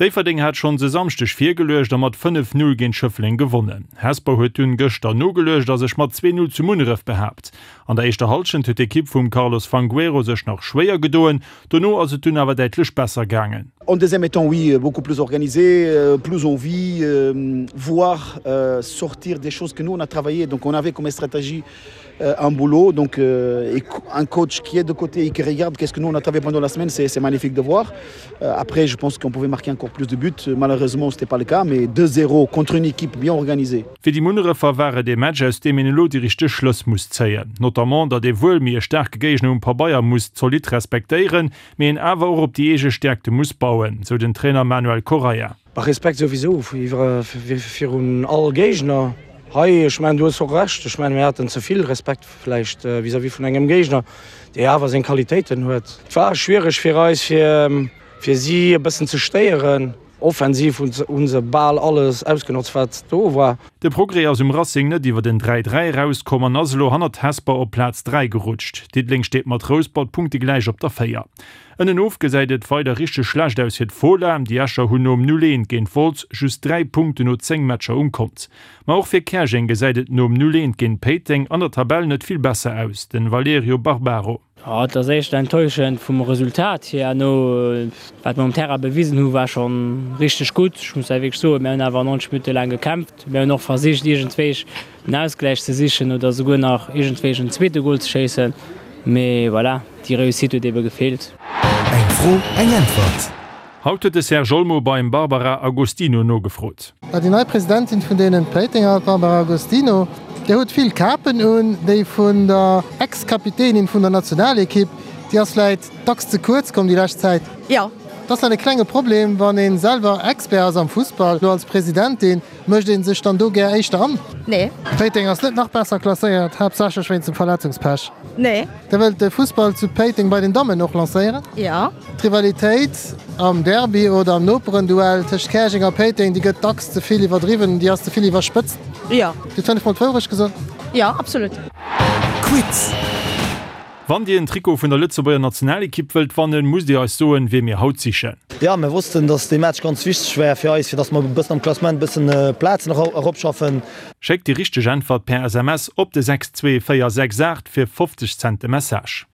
Déifferdeng hat schonns e Samschdeg virgeluecht a mat 5, 0 géint Schëffleng gewonnen. Hesper huet dunn gëschter nogeluecht a sech mat 2, 0 zu Munneref behaapt. An der éischter Hallschent huet d'Ekipp vum Carlos Fangueiro sech nach schwéier gedoen, dono ass et dunn awer däitlech besser gaangen. En deuxième mi-temps oui, beaucoup plus organisé, plus envie, voir sortir des choses que nous on a travaillé, donc on avait comme stratégie un boulot donc un coach qui est de côté et qui regarde qu'est-ce que nous on a travaillé pendant la semaine c'est magnifique de voir après je pense qu'on pouvait marquer encore plus de buts malheureusement c'était pas le cas mais 2-0 contre une équipe bien organisée. Fir déi Munnerefer war et ee Match aus deem een elo déi richteg Schlëss muss zéien. Notamment datt ee wuel méi e staarke Géigner um Pabeier muss zolidd respektéieren, mee een awer och op déi eege Stäerkte muss bauen, sou den Trainer Manuel Correia. Respekt souwisou virun all Géigner hei. Ech mengen, du hues och Recht. Ech mengen, mir haten ze vill Respekt vläicht vis-à-vis vun engem Géigner, dee awer seng Qualitéiten huet. Et war schwiereg fir eis, fir si e bëssen ze stéieren. Offensiv hu se bal alles ausgenotzt, wat do war. De Progrès ass um Racing net iwwer en 3, 3 erauskomm an ass elo hannert Hesper op Plaz 3 gerutscht. Diddeleng steet mat Rouspert punktegläich op der 4. Ënnenof gesäit et weider richteg schlecht aus fir d'Fola. Déi Escher hunn nom 0, 1 géint Wolz just 3 Punkten no 10 Matcher um Kont. Ma och fir Käerjeng gesäit et nom 0, 1 géint Péiteng an der Tabell net vill besser aus. Den Valerio Barbaro. Jo, et ass éischter enttäuschend vum Resultat hier. No wat mer um Terrain bewisen hu war schonn richteg gutt. Ech muss hei wierklech soen, mir hunn awer 90 Minutte laang gekämpft. Mir hunn och versicht iergendwéi den Ausgläich ze sichen oder souguer nach iergendwéi en zweete Gol ze schéissen, mee voilà, déi Réussite huet ebe gefeelt. Eng Fro, eng Äntwert. Haut huet de Serge Olmo beim Barbara Agostino nogefrot. Déi nei Presidentin vun deenen Péitenger, d'Barbara Agostino, Dir hutt vill Kapen un, déi vun der Ex-Kapitänin vun der Nationalekipp, déi ass vläit dacks ze kuerz komm déi lescht Zäit. Jo. Dat ass dann e klenge Problem, wann ee selwer Expert ass am Fussball, lo als Presidentin. Mécht een sech dann do gär éischter an? Nee. Péiteng ass net nach besser klasséiert, haaptsächlech wéinst dem Verletzungspech. Nee. Der wëllt de Fussball zu Péiteng bei den Dammen och lancéieren? Jo. D'Rivalitéit am Derby oder am Noperenduell tëscht Käerjeng a Péiteng, déi gëtt dacks ze vill iwwerdriwwen, déi ass ze vill iwwerspëtzt. Jo. Dir hutt 5 mol d'Wourecht gesot? Jo, absolut. Quiz. Wann Dir en Trikot vun der Lëtzebuerger Nationalekipp wëllt wannen, musst Dir eis soen, wee mir haut sichen. Jo, mir wossten, dass dee Match ganz wichteg war fir eis, fir dass mer e bëssen am Klassement e bëssen Plazen eropschaffen. Schéckt déi richteg Äntwert per SMS op de 62468 fir 50 Cent de Message.